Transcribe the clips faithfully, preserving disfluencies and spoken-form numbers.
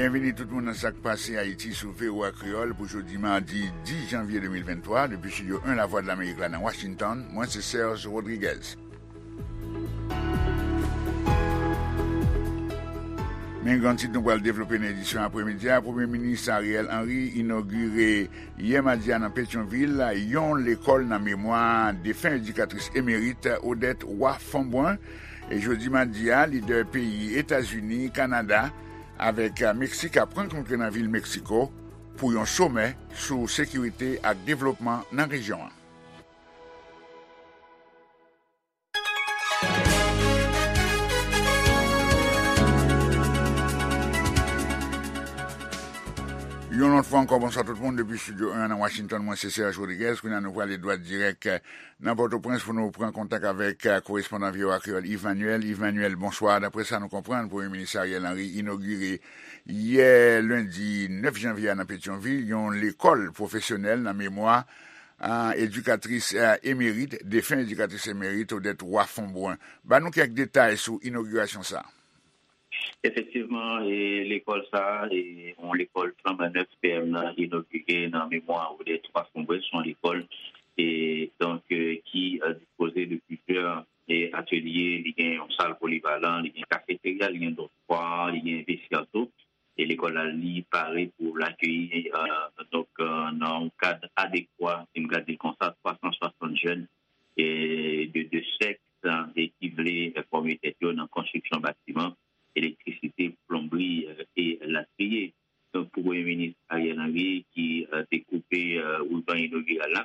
Byenvini tout moun nan Sa k Pase Ayiti sou V O A Kreyòl pou jodi madi dis janvye de mil venntwa, depi estidyo en Lavwadlamerik la nan Washington, mwen se Serge Rodriguez. Men gran tit nou pral devlope nan edisyon apremidi a, Premye Minis Ariel Henry inogire yè madi a nan Petyonvil yon lekòl nan memwa defen edikatris emerit Odette Roy Fombrun. E jodi madi a, lidè peyi Etazini, Kanada, avèk Meksik ap rankontre nan vil Meksiko pou yon somè sou sekirite ak devlopman nan rejyon an. Yon lòt fwa ankò, bonswa tout moun depi estidyo en nan Washington. Mwen se Serge Rodriguez. Kounye a nou prale dwat dirèk nan Pòtoprens pou nou pran kontak avèk, eh, korespondan V O A Kreyòl Yves Manuel. Yves Manuel, bonswa. Daprè sa nou konprann, Premye Minis Ariel Henry inogire yè lendi nèf janvye a nan Petyonvil yon lekòl pwofesyonèl nan memwa, eh, edikatris, eh, emerit, defen edikatris emerit Odette Roy Fombrun. Ban nou kèk detay sou inogirasyon sa a. Efektivman, e, lekòl sa a, e, yon lekòl flanbannèf P M nan inogire nan memwa Odette Roy Fombrun, se yon lekòl, e, donk, e, ki, e, dispoze de plizyè, e, atelye, li gen yon sal polivalan, li gen kafeterya, li gen dòtwa, li gen vestyè tou. E lekòl la, li pare pou l akeyi, e, donk, e, nan yon kad adekwa, si m ka di l konsa, twa san swasant jèn, e, de, de sèks, e, ki vle, e, fòme tèt yo nan konstriksyon batiman, elektrisite, plonbri, e, e latriye. Donk, pou Premye Minis Ariel Henry, ki, e, te koupe, e, riban inogiral la,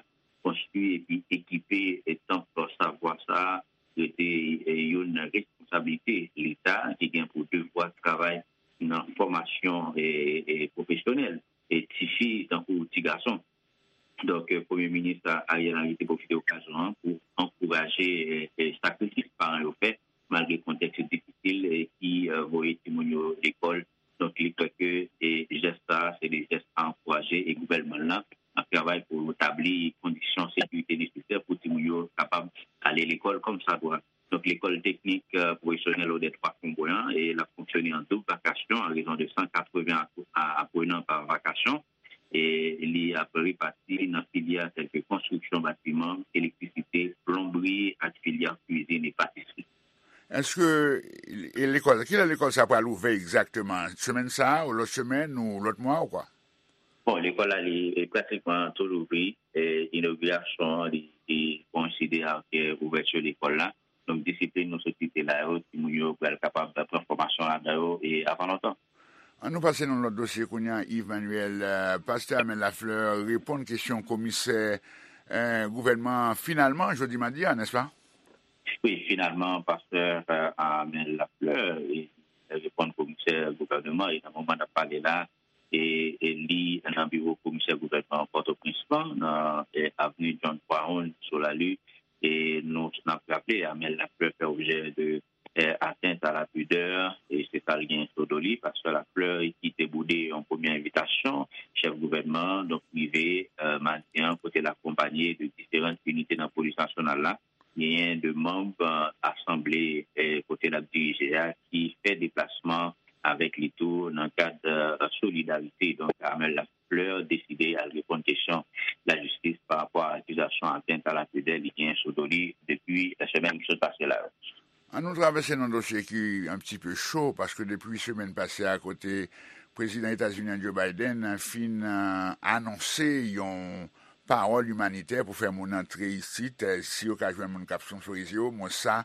konstwi epi ekipe, e, tanp savwa sa a rete, e, youn nan responsablite Leta ki gen pou devwa travay nan fòmasyon, e, e, pwofesyonèl, e tifi tankou ti gason. Donk, e, Premye Minis Ariel Henry te pwofite okazyon an pou ankouraje, e, e, sakrifis paran yo fè, malgre kontèks difisil, e, ki, e, voye timoun yo lekòl. Donk, li kwè ke, e, jès sa a, se de jès a ankouraje, e gouvènman l lan ap travay pou tabli kondisyon sekirite nesesè pou timoun yo kapab ale lekòl kòmsadwa. Donk, lekòl teknik, e, pwofesyonèl Odette Roy Fombrun an, e l ap fonksyone an doub vakasyon an rezon de san katreven ap-, a-, aprenan pa vakasyon. E li ap repati nan filyè tèlke konstriksyon batiman, elektrisite, plonbri ak filyè kwizin e patisri. Èske, e lekòl, kilè lekòl sa pral ouvè egzakteman? Semèn sa a, ou lòt semèn, ou lòt mwa, ou kwa? Bon, lekòl la, li, e, pratikman tou louvri. E, inogirasyon an, li, li koyenside ak, e, ouvèti lekòl la. Donk, disiplin nou sot site la yo, timoun yo pral kapab pran fòmasyon ladan yo, e, avan lontan. Ann nou pase nan lòt dosye kounye a, Yves Manuel. E, pastè Amel Lafleur reponn kesyon komisè, e, gouvènman an finalman, jodi madi a, nèspa? Wi, finalman, pastè, e, Amel Lafleur, e, reponn komisè gouvènman, e nan moman n ap pale la, e, e li nan biwo komisè gouvènman Pòtoprens lan, nan, e, avni John Brown, sou Lali. E nou, n ap raple, Amel Lafleur fè objè de, e, atteinte à la pudeur, e se sa l gen sou do li, pastè Lafleur, ki te boude yon premye envitasyon chèf gouvènman an, donk rive, e, madi an, kote l akonpanye de diferan inite nan polis nasyonal la, genyen de manm, e, asanble, e, kote l ap dirije a, ki fè deplasman avèk li tou nan kad, e, solidarite. Donk, Amel Lafleur deside al reponn kesyon lajistis pa rapò a akizasyon atteinte à la pudeur li genyen sou do li depi semèn ki sot pase la yo. Ann nou travèse nan dosye ki un petit peu chaud, paske depi semèn pase a, kote prezidan etazini an Joe Biden fin, e, anonse yon pawòl imanitè pou fè moun antre isit, e, si yo ka jwenn moun k ap sponsorizye yo, mwen sa,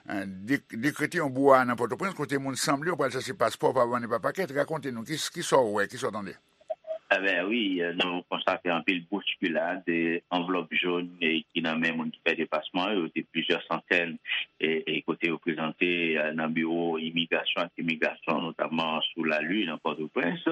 e, de-, dekrete yon brouhaha nan Pòtoprens, kote moun sanble yo pral chache paspò pa bann e pa pakèt. Rakonte nou, ki, ki sa w wè, ki sa w tande? Ebyen, wi, e, nou konstate anpil bouskilad, e, anvlòp jòn, e, ki nan men moun ki fè deplasman yo, se plizyè santèn, e, e, kote yo prezante, e, nan biwo imigrasyon ak imigrasyon, notamman sou Lali, nan Pòtoprens.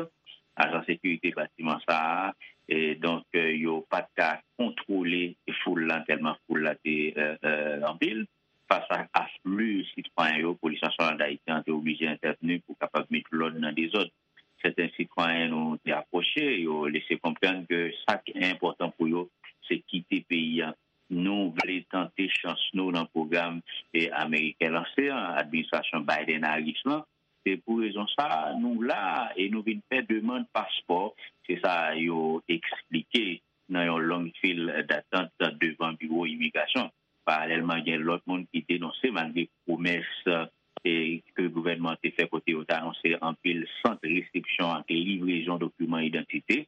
Ajan sekirite batiman sa a, e, donk, e, yo pa t ka kontwole foul la, tèlman foul la te, e, e, anpil. Fas a afli sitwayen yo, Polis Nasyonal d Ayiti an te oblije entèvni pou kapab met lòd nan dezòd. Sèten sitwayen nou te apwoche, yo lese konprann ke sa ki enpòtan pou yo, se kite peyi a. Nou vle tante chans nou nan pwogram, e, ameriken lanse an, administrasyon Biden-Harris lan, Se pou rezon sa a, nou la a e nou vin fè demann paspò, se sa yo eksplike nan yon long fil datant devan biwo imigrasyon. Paralèlman, gen lòt moun ki denonse, malgre pwomès e ke gouvènman an te fè kote yo te anonse anpil sant resepsyon ak livrezon dokiman idantite,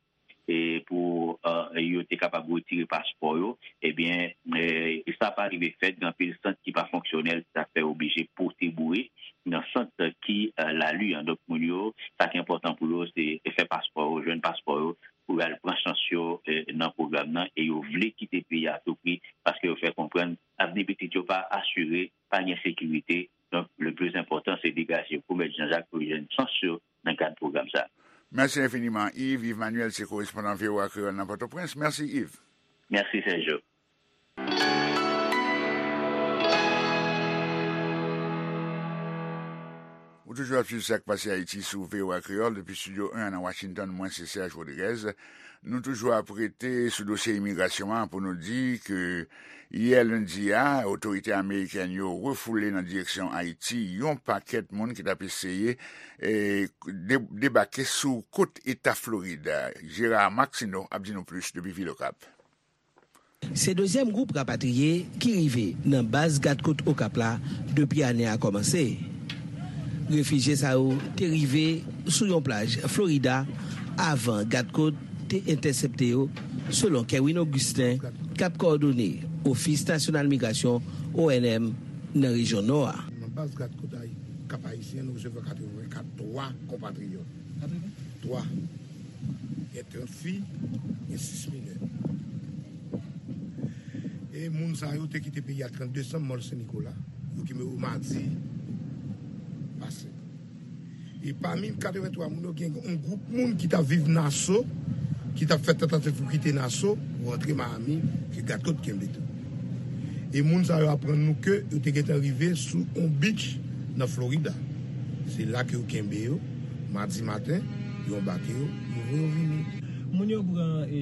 e pou e, yo te kapab retire paspò yo, ebyen, e, sa pa rive fèt. Gen anpil sant ki pa fonksyonèl, sa fè oblije pote boure nan sant ki e, lari an. Donk, moun yo, sa ki enpòtan pou yo, se fè paspò yo, jwenn paspò yo, pou y al pran chans yo e, nan pwogram nan, e yo vle kite peyi a tou pri, paske yo fè konprann avni pitit yo pa asire, pa gen sekirite. Donk, le plus important, se degaje yo pou Mèt Jean Jacques pou yo jwenn chans yo nan kad pwogram sa a. Mèsi enfiniman, Yves. Yves Manuel se korespondan V O A Kreyòl nan Pòtoprens. Mèsi, Yves. Mèsi, Sergio. Ou toujou ap swiv Sa k Pase Ayiti sou V O A Kreyòl depi Estidyo en nan Washington. Mwen se Serge Rodriguez. Nou toujou ap rete sou dosye imigrasyon an pou nou di ke yè lendi a, otorite amerikèn yo refoule nan direksyon Ayiti yon pakèt moun ki t ap eseye e, de- debake sou kot eta Florid. Gérard Maxineau ap di nou plis depi Vilokap. Se dezyèm gwoup rapatriye ki rive nan baz gadkòt Okap la depi ane a kòmanse. Refijye sa yo te rive sou yon plaj Florida avan gadkòt te entèsepte yo, selon Kerwin Augustin, k ap kowòdone Ofis Nasyonal Migrasyon, O N M, nan rejyon Nò a. Nan baz gadkòt Kap Ayisyen, nou resevwa katrevenkat twa konpatriyòt. Twa. Gen trant fi, gen sis minè. E moun sa yo te kite peyi a trannde desanm, mòl Sen Nikola. Yo kenbe yo madi pase. E pami katreventwa moun yo, gen yon gwoup moun ki t ap viv Naso, ki t ap fè tantativ pou kite Naso, pou rantre Miami, ke gadkòt kenbe tou. E moun sa yo aprann nou ke yo te gentan rive sou yon beach nan Florida. Se la ke yo kenbe yo, madi maten, yo anbake yo, yo voye yo vini. Moun yo pran, e,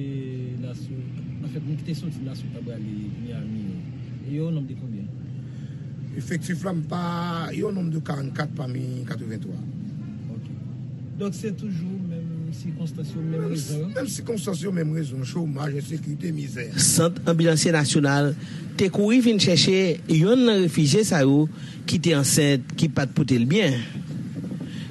Naso, anfèt, moun ki te soti Naso ta prale Miami yo, e yo o nonb de konbyen? Efektif la, m pa, yo o nonb de karannkat pami katreventwa. Ok. Donk, se toujou menm sikonstans yo, menm rezon yo? Menm sikonstans yo, menm rezon, chomaj, ensekirite, mizè. Sant Anbilansye Nasyonal te kouri vin chèche yonn nan refijye sa yo ki te ansent, ki pa t pote l byen.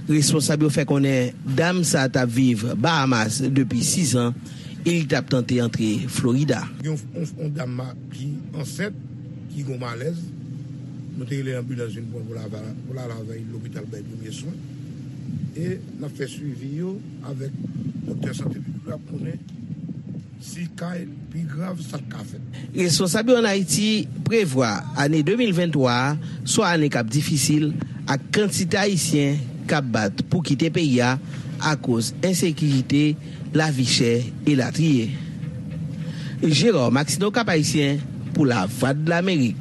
Responsab yo fè konnen dam sa a t ap viv Bahamas depi sizan e li t ap tante antre Florida. Gen yon, yon, yon dam ma- ki ansent, ki gen malèz. Nou te rele anbilans vin pran pou l al avè l lopital bay premye swen. E n ap fè swivi yo avèk doktè sante piblik la pou konnen si ka pi grav sa k ka fèt. Responsab yo ann Ayiti prevwa ane de mil venntwa a swa ane k ap difisil ak kantite Ayisyen k ap bat pou kite peyi a akoz ensekirite, lavi chè, elatriye. Gérard Maxineau, Cap Haïtien, pou Lavwadlamerik.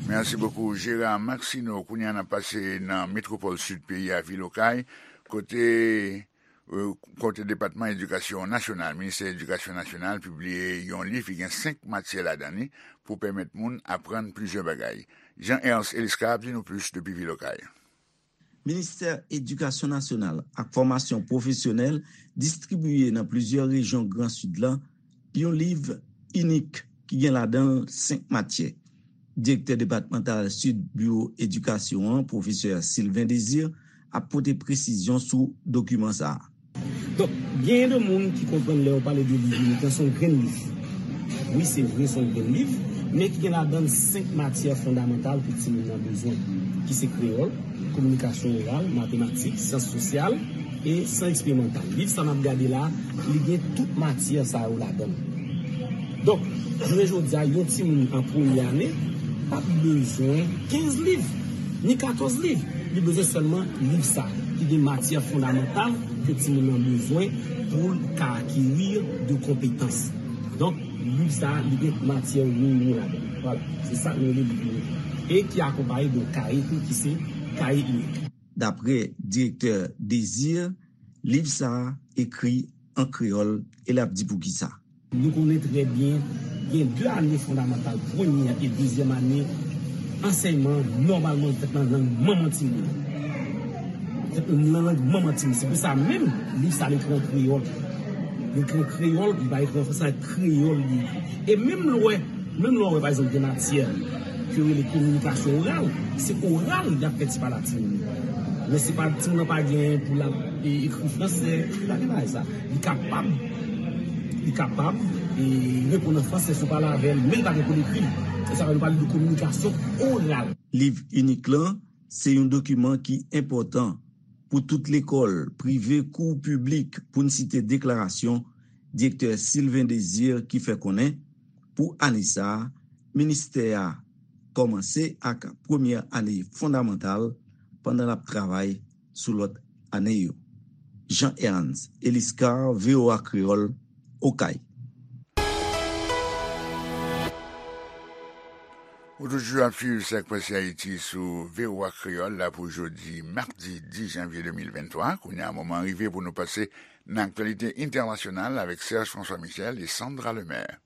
Mèsi bokou, Gérard Maxineau. Kounye a, n ap pase nan metwopòl sid peyi a, vil Okay, kote, euh, kote Depatman Edikasyon Nasyonal, Ministè Edikasyon Nasyonal, pibliye yon liv ki gen senk matyè ladan li pou pèmèt moun aprann plizyè bagay. Jean Ernst Eliscar ap di nou plis depi vil Okay. Ministè Edikasyon Nasyonal ak Fòmasyon Pwofesyonèl distribiye nan plizyè rejyon Gran Sid la yon liv inik ki gen ladan l senk matyè. Direktè depatmantal Sid Biwo Edikasyon an, pwofesè Sylvain Désir, ap pote presizyon sou dokiman sa a. Donk, genyen de moun ki konprann lè yo pale de liv inik lan, se yon grenn liv. Wi, se vre, se yon grenn liv, men ki gen ladan l senk matyè fondamantal ke timoun nan bezwen, ki se kreyòl, kominikasyon oral, matematik, syans sosyal e syans eksperimantal. Liv sa n ap gade la, li gen tout matyè sa yo ladan l. Donk, jounen jodi a, yon timoun an premye ane p ap bezwen kenz liv, ni katòz liv. Li bezwen sèlman liv sa a, ki gen matyè fondamantal ke timoun nan bezwen pou l ka akeri de konpetans. Donk, liv sa a, li gen matyè minimòm ladan l. Vwala, se sa nou rele liv inik. E ki akonpaye de yon kaye tou, ki se kaye inik. Daprè direktè Désir, liv sa a ekri an kreyòl e l ap di poukisa. Nou konnen trè byen, gen de ane fondamantal, premye e dezyèm ane Ansèyman nòmalman fèt nan lang manman timoun. Fèt nan lang manman timoun. Se pou sa menm, liv sa l ekri an kreyòl. Li ekri an kreyòl, li pa ekri an fransè, kreyòl li ekri. E menm lè w wè, menm lè w wè, pa egzanp, gen matyè ke yo rele kominikasyon oral, se oral y ap fè ti pale a timoun yo. Men se pa timoun nan pa gen pou l ap e, ekri fransè, li pa gen bagay sa. Li kapab, li kapab e, reponn an fransè si w pale avè l, men li pa gen pou l ekri l. Se sa fè nou pale de kominikasyon oral. Liv inik lan se yon dokiman ki enpòtan pou tout lekòl, prive kou piblik, pou n site deklarasyon direktè Sylvain Désir ki fè konnen, pou ane sa a, ministè a kòmanse ak premyè ane fondamantal pandan l ap travay sou lòt ane yo. Jean Ernst Eliscar, V O A Kreyòl, Okay. Ou toujou ap swiv Sa k Pase Ayiti sou V O A Kreyòl la pou jodi madi dis janvye de mil venntwa. Kounye a, moman an rive pou nou pase nan aktyalite entènasyonal avèk Serge François Michel e Sandra Lemaire.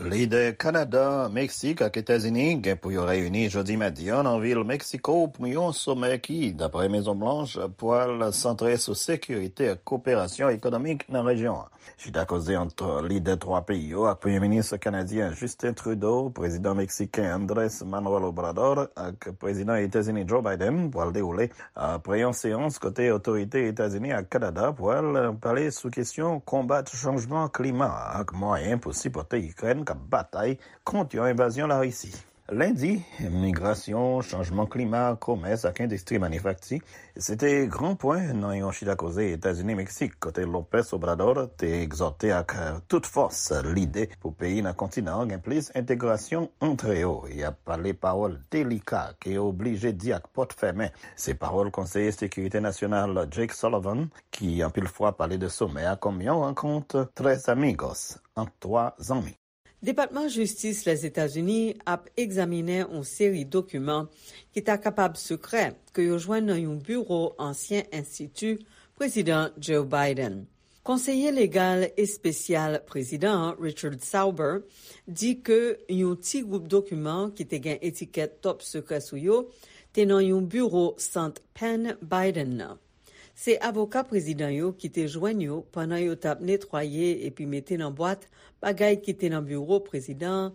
Lidè Kanada, Meksik ak Etazini gen pou yo reyini jodi madi an nan vil Meksiko pou yon somè ki, dapre Mezon Blanch, pral santre sou sekirite ak koperasyon ekonomik nan rejyon an. Chita koze ant lidè twa peyi yo ak Premye Minis kanadyen Justin Trudeau, Prezidan Meksiken Andrés Manuel Obrador ak Prezidan Etazini Joe Biden pral dewoule apre yon seyans kote otorite Etazini ak Kanada pral pale sou kesyon konbat chanjman klima ak mwayen pou sipòte Ikrèn k ap batay kont yon envazyon Larisi. Lendi, migrasyon, chanjman klima, komès ak endistri manifakti, se te gran pwen nan yon chita koze Etazini-Meksik, kote López Obrador te egzòte ak tout fòs lide pou peyi nan kontinan an gen plis entegrasyon antre yo. Y ap pale pawòl delika ke yo oblije di ak pòt fèmen. Se pawòl konseye sekirite nasyonal Jake Sullivan, ki anpil fwa pale de somè a kòm yon rankont tres amigos ant twa zanmi. Depatman Jistis Lèzetazini ap egzaminen yon seri dokiman ki ta kapab sekrè ke yo jwenn nan yon biwo ansyen enstiti Prezidan Joe Biden. Konseye legal espesyal prezidan an, Richard Sauber, di ke yon ti gwoup dokiman ki te gen etikèt Top Secret sou yo te nan yon biwo sant Penn Biden nan. Se avoka prezidan yo ki te jwenn yo pandan yo t ap netwaye epi mete nan bwat bagay ki te nan biwo prezidan an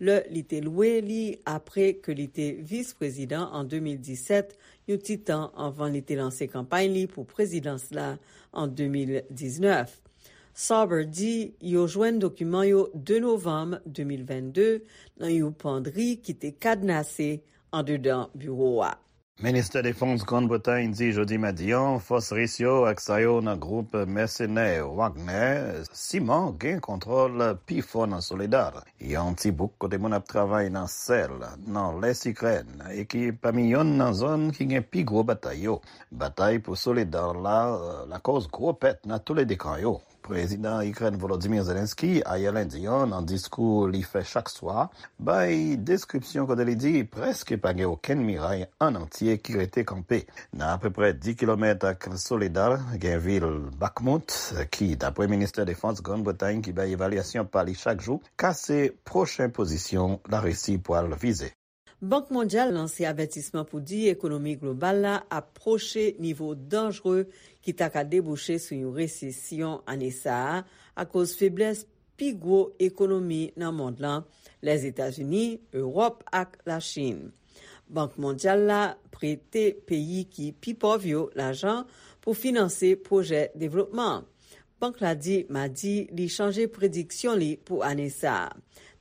lè li te lwe li apre ke li te vis prezidan an de mil disèt, yon ti tan anvan li te lanse kanpay li pou prezidans la an de mil diznèf. Sauber di yo jwenn dokiman yo de novanm de mil vennde nan yon pandri ki te kadnase andedan biwo a. Ministè Defans Grann Bretay di jodi madi an fòs ris yo ak sa yo nan gwoup mèsenè Wagner siman gen kontwòl pi fò nan Soledar, yon ti bouk kote moun ap travay nan sèl nan lès Ikrèn e ki pami yonn nan zòn ki gen pi gwo batay yo. Batay pou Soledar la lakòz gwo pèt nan toulede kan yo. Prezidan Ikrèn Volodymyr Zelensky ayè lendi an nan diskou li fè chak swa bay deskripsyon kote li di prèske pa gen okenn miray an antye ki rete kanpe. Nan apeprè dis kilomèt ak Soledar gen vil Bakhmut ki, dapre Ministè Defans Grann Bretay ki bay evalyasyon pa li chak jou, ka se pwochen pozisyon Larisi pwal vize. Bank Mondyal lanse avètisman pou di ekonomi global la ap pwoche nivo danjre ki ta ka debouche sou yon resesyon ane sa a akoz feblès pi gwo ekonomi nan mond lan, Lèzetazini, Ewòp ak Lachin. Bank Mondyal la prete peyi ki pi pòv yo lajan pou finanse pwojè devlopman. Bank la di madi li chanje prediksyon li pou ane sa a.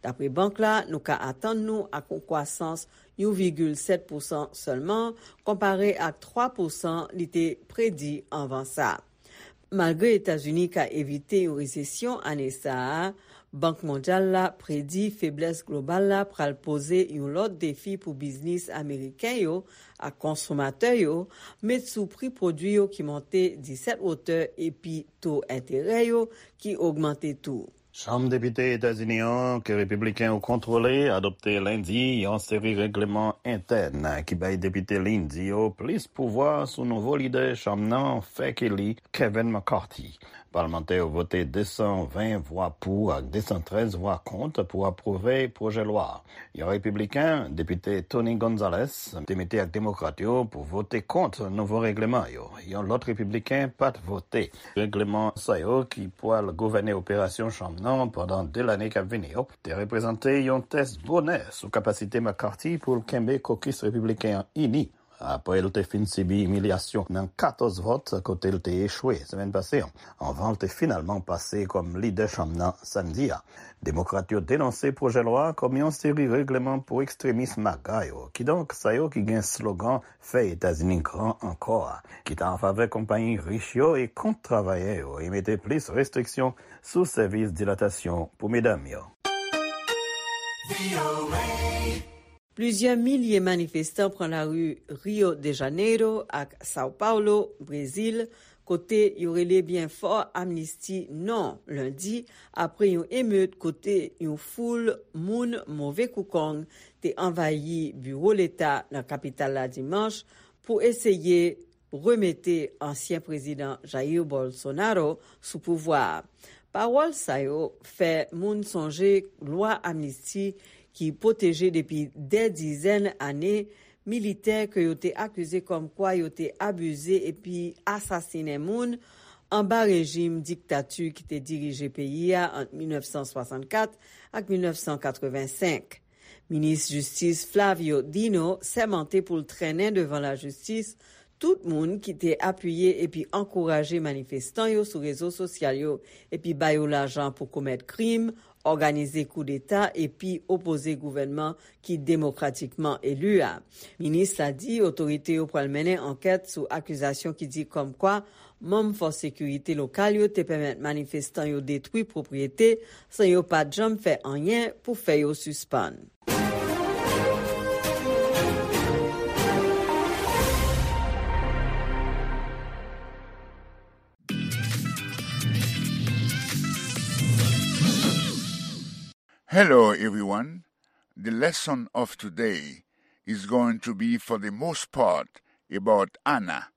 Dapre bank la, nou ka atann nou ak yon kwasans yon vigil sèt pousan sèlman, konpare ak twa pousan li te predi anvan sa. Malgre Etazini ka evite yon resesyon ane sa a, Bank Mondyal la predi feblès global la pral poze yon lòt defi pou biznis ameriken yo ak konsomatè yo, met sou pri pwodui yo ki monte disèt wotè epi to enterè yo ki ogmante tou. Chanm Depite Etazini an, ke Repibliken yo kontwole, adopte lendi yon seri règleman entèn ki bay depite Lindsey yo plis pouvwa sou nouvo lidè chanm nan fèk eli, Kevin McCarthy. Palmantè yo vote de san ven vwa pou ak de san trèz vwa kont pou apwouve pwojè lwa a. Yon repibliken, depite Tony Gonzales, te mete ak demokrat yo pou vote kont nouvo regleman yo. Yon lòt repibliken pa t vote. Regleman sa yo ki pral gouvène operasyon chanm nan pandan de lane k ap vini yo te reprezante yon tès bonè sou kapasite McCarthy pou l kenbe kokis repibliken an ini apre l te fin sibi imilyasyon nan katòz vòt kote l te echwe semèn pase an, anvan l te finalman pase kòm lidè chanm nan samdi a. Demokrat yo denonse pwojè lwa a kòm yon seri regleman pou ekstremis MAGA yo, kidonk sa yo ki gen slogan "Fè Etazini gran ankò" a, ki ta an favè konpayi rich yo e kont travayè yo, e mete plis restriksyon sou sèvis dilatasyon pou medam yo. Plizyè milye manifestan pran lari Rio de Janeiro ak São Paulo, Brezil, kote yo rele byen fò amnisti non lendi, apre yon emet kote yon foul moun move koukong te anvayi biwo leta nan kapital la dimanch pou eseye remete ansyen prezidan Jair Bolsonaro sou pouvwa a. Pawòl sa yo fè moun sonje lwa amnisti ki pwoteje depi dè dizèn ane militè ke yo te akize kòmkwa yo te abize epi asasinen moun anba rejim diktati ki te dirije peyi a ant mil nèf san swasannkat ak mil nèf san katrevensenk. Minis Jistis Flávio Dino sèmante pou l trennen devan lajistis tout moun ki te apiye epi ankouraje manifestan yo sou rezo sosyal yo epi ba yo lajan pou komèt krim, òganize koudeta epi opoze gouvènman ki demokratikman eli a. Minis la di otorite yo pral mennen ankèt sou akizasyon ki di kòmkwa manm fòs sekirite lokal yo te pèmèt manifestan yo detwi pwopriyete san yo pa t janm fè anyen pou fè yo sispann. Hello, everyone. The lesson of today is going to be, for the most part, about Anna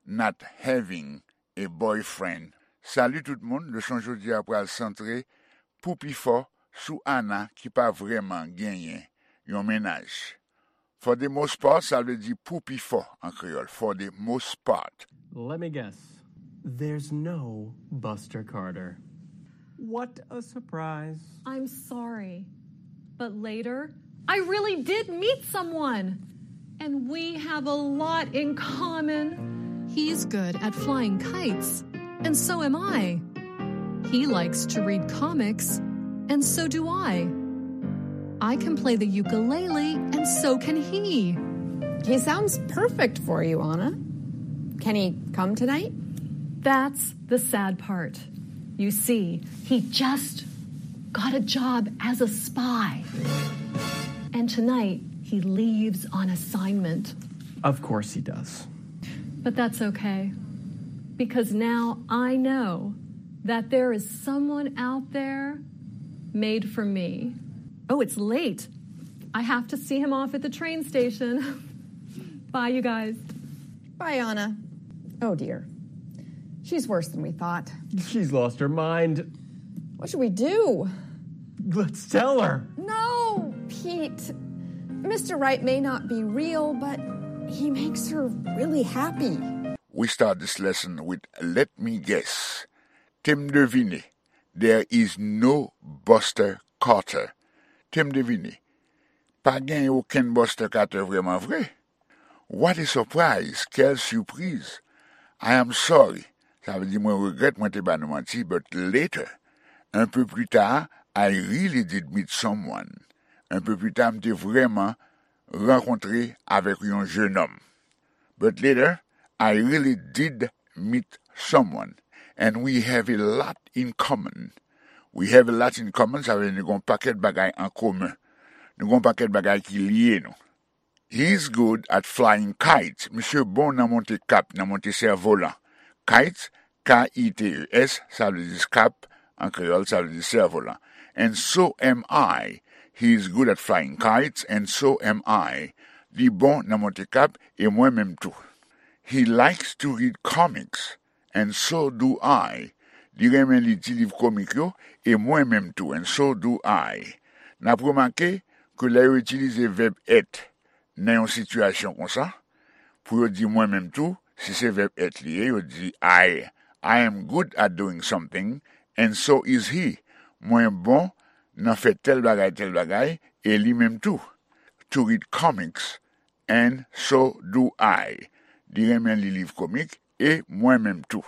not having a boyfriend. Salut tout moun, leson jodi a pral santre pou pi fò sou Anna ki pa vrèman genyen yon mennaj. For the most part, sa vle di pou pi fò an kreyòl. For the most part. Let me guess. There's no Buster Carter. What a surprise. I'm sorry, but later, I really did meet someone. And we have a lot in common. He's good at flying kites, and so am I. He likes to read comics, and so do I. I can play the ukulele, and so can he. He sounds perfect for you, Anna. Can he come tonight? That's the sad part. You see, he just got a job as a spy. And tonight, he leaves on assignment. Of course he does. But that's okay. Because now I know that there is someone out there made for me. Oh, it's late. I have to see him off at the train station. Bye, you guys. Bye, Anna. Oh, dear. She's worse than we thought. She's lost her mind. What should we do? Let's tell her. No, Pete. Mister Right may not be real, but he makes her really happy. We start this lesson with "Let me guess." Te m devine. There is no Buster Carter. Te m devine. Pa gen okenn Buster Carter vrèman vre. What a surprise! Quelle surprise! I am sorry. Sa vle di mwen regrèt mwen te ba nou manti, but later, un peu plus tard, I really did meet someone. Un peu plus tard, m te vrèman rankontre avèk yon jenòm. But later, I really did meet someone, and we have a lot in common. We have a lot in common, sa vle di nou gen yon pakèt bagay an komen. Nou gen yon pakèt bagay ki lye nou. He's good at flying kites. Misye bon nan monte kap, nan monte sèvolan. Kites, K I T E S, sa vle di kap, an kreyòl, sa vle di sèvolan. And so am I. He's good at flying kites, and so am I. Li bon nan monte kap, e mwen menm tou. He likes to read comics, and so do I. Li renmen li ti liv komik yo, e mwen menm tou, and so do I. N ap remake ke lè yo itilize vèb èt nan yon sitiyasyon konsa, pou yo di mwen menm tou, si se vèb èt li ye, yo di I, I am good at doing something, and so is he. Mwen bon nan fè tèl bagay, tèl bagay, e li menm tou. To read comics, and so do I. Li renmen li liv komik, e mwen menm tou.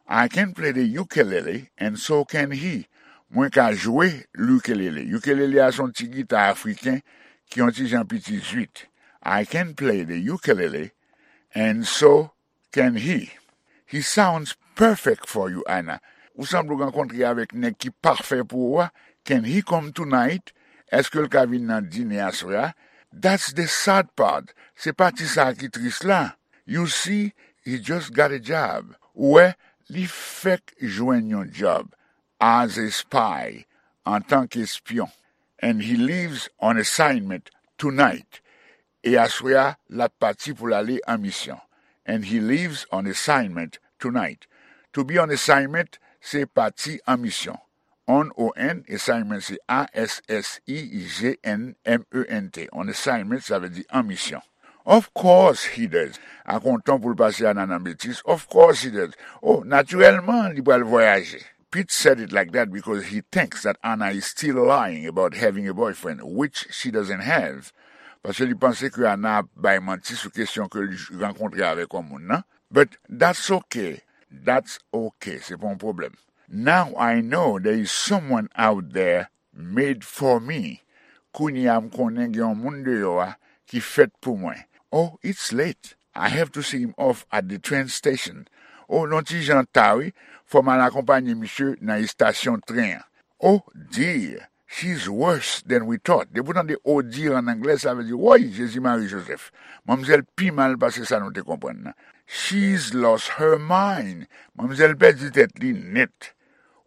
I can play the ukulele, and so can he. Mwen ka jwe ukelele. Ukelele a se yon ti gita afriken ki yon ti jan piti zwit. I can play the ukulele, and so can he. He sounds perfect for you, Anna. Ou sanble w rankontre avèk nèg ki pafè pou ou a. Can he come tonight? Èske l ka vin nan dine aswè a? That's the sad part. Se pati sa a ki tris la. You see, he just got a job. Ou wè, li fèk jwenn yon djòb. As a spy, antanke espyon. And he leaves on assignment tonight. E aswè a, l ap pati pou l ale an misyon. And he leaves on assignment tonight. To be on assignment, se pati an misyon. On, O N, assignment se A S S I G N M E N T. On assignment, sa vle di an misyon. Of course he does. Ak yon ton pou l pase Anna nan betiz. Of course he does. Oh, natirèlman, li pral vwayaje. Pete said it like that because he thinks that Anna is still lying about having a boyfriend, which she doesn't have. Paske li panse ke Anna ap bay manti sou kesyon ke l rankontre avèk yon moun nan. But that's okay. That's okay. Se pa yon pwoblèm. Now I know there is someone out there made for me. Kounye a m konnen gen yon moun deyò a ki fèt pou mwen. Oh, it's late. I have to see him off at the train station. Oh, l yon ti jan ta wi. Fò m al akonpanye misye nan estasyon tren an. Oh dear, she's worse than we thought. Depi w tande oh dear an anglè, sa vle di, woy, Jezi Mari Jozèf. Manmzèl pi mal pase sa nou te konprann nan. She's lost her mind. Manmzèl pèdi tèt li nèt.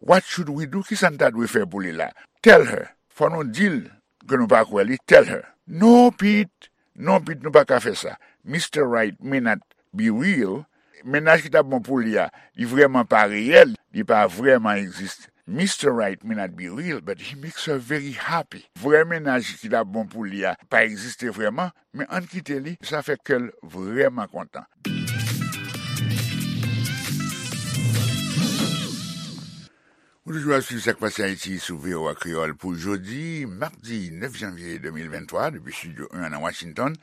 What should we do? Kisa n ta dwe fè pou li la? Tell her. Fò nou di l ke nou pa kwè li. Tell her. No, Pete. Non, Pete, nou pa ka fè sa. Mister Right may not be real. Mennaj ki t ap bon pou li a, li vrèman pa reyèl, li pa vrèman egziste. Mister Right may not be real, but he makes her very happy. Vrè mennaj ki t ap bon pou li a pa egziste vrèman, men ann kite li, sa fè kè l vrèman kontan. Ou toujou ap swiv Sa k Pase Ayiti sou V O A Kreyòl pou jodi, madi nèf janvye de mil venntwa, depi Estidyo en an nan Washington.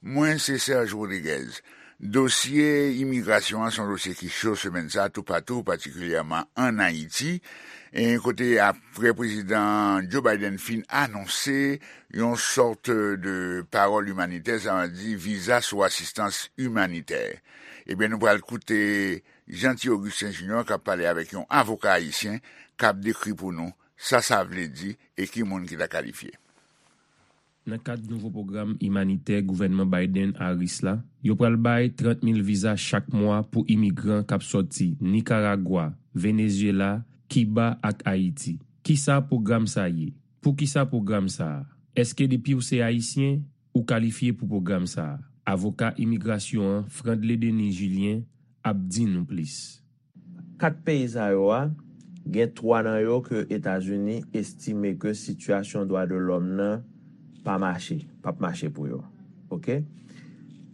Mwen se Serge Rodriguez. Dosye imigrasyon an se yon dosye ki cho semèn sa a toupatou, patikilyèman ann Ayiti, e kote apre Prezidan Joe Biden fin anonse yon sòt de pawòl imanitè, sa vle di viza sou asistans imanitè. Ebyen, nou pral koute Jeanty Augustin Junior k ap pale avèk yon avoka ayisyen k ap dekri pou nou sa sa vle di e ki moun ki ta kalifye. Nan kad nouvo pwogram imanitè gouvènman Biden-Harris la, yo pral bay trant mil viza chak mwa pou imigran k ap sòti Nikaragwa, Venezyela, Kiba ak Ayiti. Kisa pwogram sa ye? Poukisa pwogram sa a? Èske depi w se Ayisyen, ou kalifye pou pwogram sa a? Avoka imigrasyon an, Frandley Denis Julien, ap di nou plis. Kat peyi sa yo a, gen twa nan yo ke Etazini estime ke sitiyasyon dwa de lòm nan pa mache, p ap mache pou yo. Oke?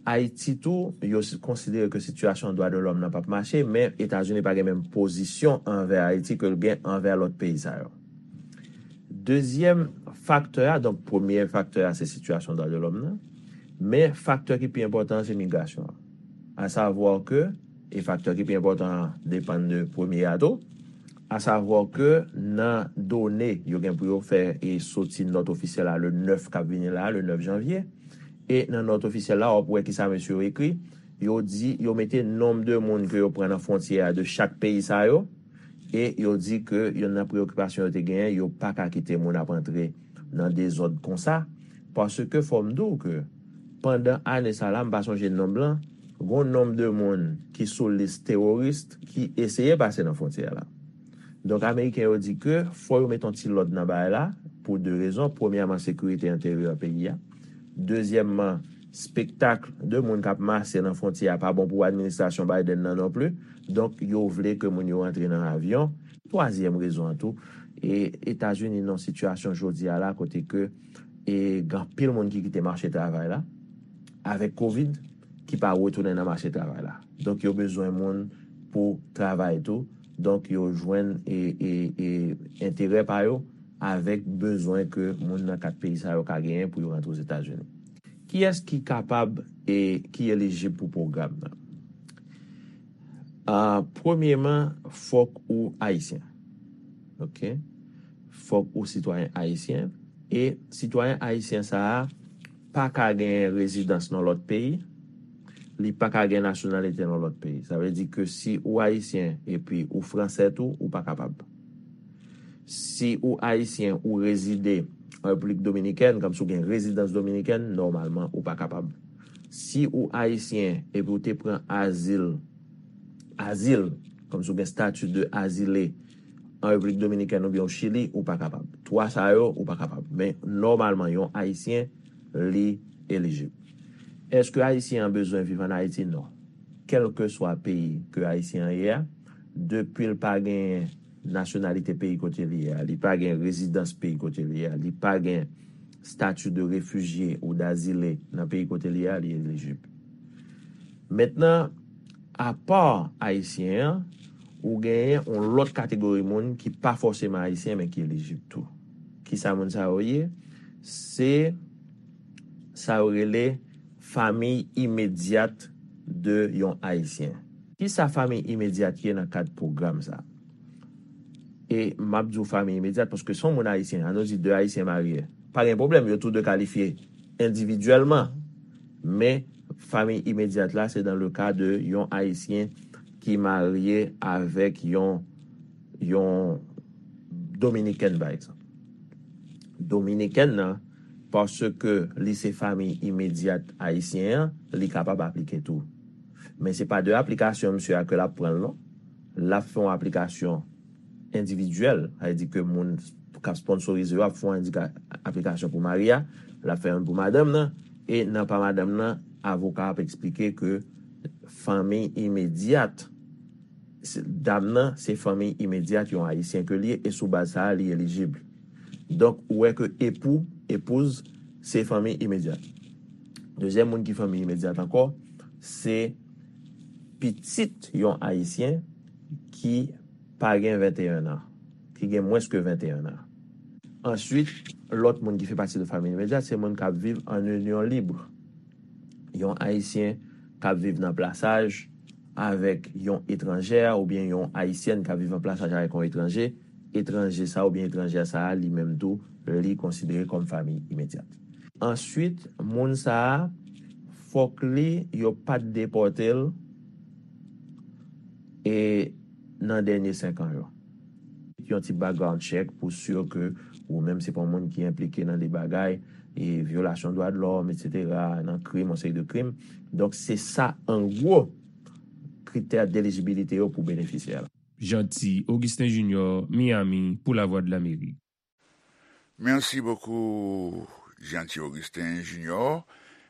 Ayiti tou, yo si-, konsidere ke sitiyasyon dwa de lòm nan p ap mache, men Etazini pa gen menm pozisyon anvè Ayiti ke l gen anvè lòt peyi sa yo. Dezyèm faktè a, donk, premye faktè a, se sitiyasyon dwa de lòm nan. Men faktè ki pi enpòtan an, se migrasyon an. Asavwa ke, e faktè ki pi enpòtan an depann de premye a tou, asavwa ke nan done yo gen pou yo fè e soti nòt ofisyèl la le nèf k ap vini la, le nèf janvye, e nan nòt ofisyèl la, w ap wè kisa mesye yo ekri. Yo di, yo mete nonb de moun ke yo pran nan fwontyè a de chak peyi sa yo, e yo di ke youn nan preyokipasyon yo te genyen, yo pa ka kite moun ap antre nan dezòd konsa, paske fò m di w ke pandan ane sa la, m pa sonje nonb lan, gon nonb de moun ki sou lis teworis ki eseye pase nan fwontyè la. Donk, Ameriken yo di ke fò yo mete yon ti lòd nan bagay la, pou de rezon. Premyèman, sekirite enteryè peyi a. Dezyèmman, Spektak de moun k ap mache nan fwontyè a pa bon pou administrasyon Biden nan non plis. Donk, yo vle ke moun yo rantre nan avyon. Twazyèm rezon an tou, e Etazini nan sitiyasyon jodi a la kote ke e gen anpil moun ki kite mache travay la avèk kovid ki pa retounen nan mache travay la. Donk, yo bezwen moun pou travay tou. Donk, yo jwenn e, e, e enterè pa yo avèk bezwen ke moun nan kat peyi sa yo ka genyen pou yo rantre Ozetazini. Kiyès ki kapab e ki elijib pou pwogram nan? Ah, premyeman, fòk ou ayisyen. Oke? Fòk ou sitwayen ayisyen. E sitwayen ayisyen sa a pa ka gen rezidans nan lòt peyi, li pa ka gen nasyonalite nan lòt peyi. Sa vle di ke si ou ayisyen epi ou fransè tou, ou pa kapab. Si ou ayisyen, ou rezide an Repiblik Dominikèn, kòmsi w gen rezidans dominikèn, nòmalman, ou pa kapab. Si ou ayisyen epi ou te pran azil, azil, kòmsi w gen stati de azile an Repiblik Dominikèn oubyen o Chili, ou pa kapab. Twa sa yo, ou pa kapab. Men, nòmalman, yon ayisyen, li elijib. Èske ayisyen an bezwen viv ann Ayiti? Non. Kèlkeswa peyi ke ayisyen an ye a, depi l pa gen nasyonalite peyi kote li ye a, li pa gen rezidans peyi kote li ye a, li pa gen stati de refijye ou dazile nan peyi kote li ye a, li elijib. Mentnan, apa ayisyen an, ou genyen yon lòt kategori moun ki pa fòseman ayisyen, men ki elijib tou. Kisa moun sa yo ye? Se sa yo rele fanmi imedyat de yon ayisyen. Kisa fanmi imedyat ye nan kad pwogram sa? E m ap di w fanmi imedyat paske se yon moun ayisyen, ann nou di de ayisyen marye. Pa gen pwoblèm, yo tou de kalifye endividyèlman. Men, fanmi imedyat la, se dans le cas de yon ayisyen ki marye avèk yon, yon dominikèn, pa egzanp. Dominikèn nan, paske li se fanmi imedyat ayisyen an, li kapab aplike tou. Men se pa de aplikasyon misye a ke l ap pran l non. L ap fè yon aplikasyon endividyèl, sa vle di ke moun k ap sponsorize yo ap fè yon endika-, aplikasyon pou mari a, l ap fè youn pou madanm nan, e nan pa madanm nan, avoka ap eksplike ke fanmi imedyat, se, dam nan, se fanmi imedyat yon ayisyen ke li ye, e sou baz sa a, li elijib. Donk, ou wè ke epou, epouz, se fanmi imedyat. Dezyèm moun ki fanmi imedyat ankò, se pitit yon ayisyen ki pa gen venteyen an, ki gen mwens ke venteyen an. Answit, lòt moun ki fè pati de fanmi imedyat, se moun k ap viv an inyon lib. Yon ayisyen k ap viv nan plasaj avèk yon etranjè oubyen yon ayisyèn k ap viv an plasaj avèk yon etranje, etranje sa oubyen etranjè sa a, li menm tou, li konsidere kòm fanmi imedyat. Answit, moun sa a, fòk li, yo pa t depòte l, e nan dènye senk an yo. Yon ti background check pou si ke ou menm se pa yon moun ki enplike nan de bagay, e vyolasyon dwa de lòm, etsetera, nan krim, yon seri de krim. Donk, se sa, an gwo, kritè delijibilite yo pou benefisyè la. Jeanty Augustin Junior, Miami, pou Lavwadlamerik. Merci beaucoup, Jeanty Augustin Junior.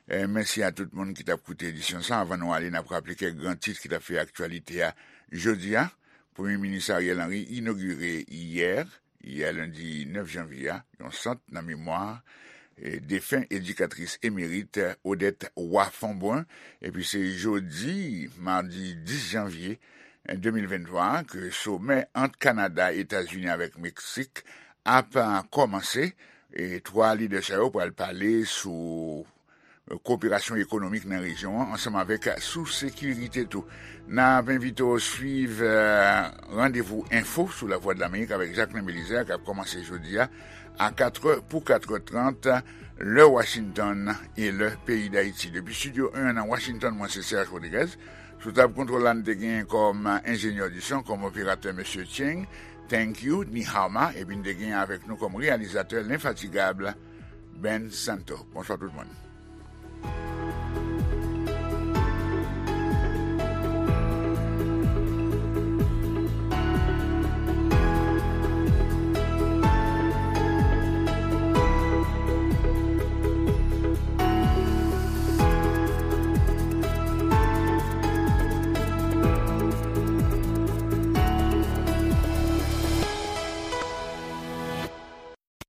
E mèsi a tout moun ki t ap koute edisyon sa. Anvan nou ale, n ap raple kèk gran tit ki t ap fè aktyalite a jodi a. Premye Minis Ariel Henry inogire yè, yè lendi nèf janvye a, yon sant nan memwa, e, defen edikatris emerit Odette Roy Fombrun. Epi se jodi, madi dis janvye, de mil venntwa, ke somè ant Kanada, Etazini avèk Meksik ap kòmanse. E twa lidè sa yo pral pale sou koperasyon ekonomik nan rejyon an, ansanm avèk sou sekirite tou. N ap envite w swiv, eh, Randevou Enfo sou Lavwadlamerik avèk Jacquelin Belizaire, k ap kòmanse jodi a, a katrè pou katrè trant, lè Washington e lè peyi Dayiti. Depi Estidyo en nan Washington, mwen se Serge Rodriguez. Sou tab kontwòl la, n te gen kòm enjenyè di son, kòm operatè, mesye Cheng. Thank you, Ni Hao Ma, epi n te gen avèk nou kòm reyalizatè lenfatigab, Ben Santo. Bonswa tout moun.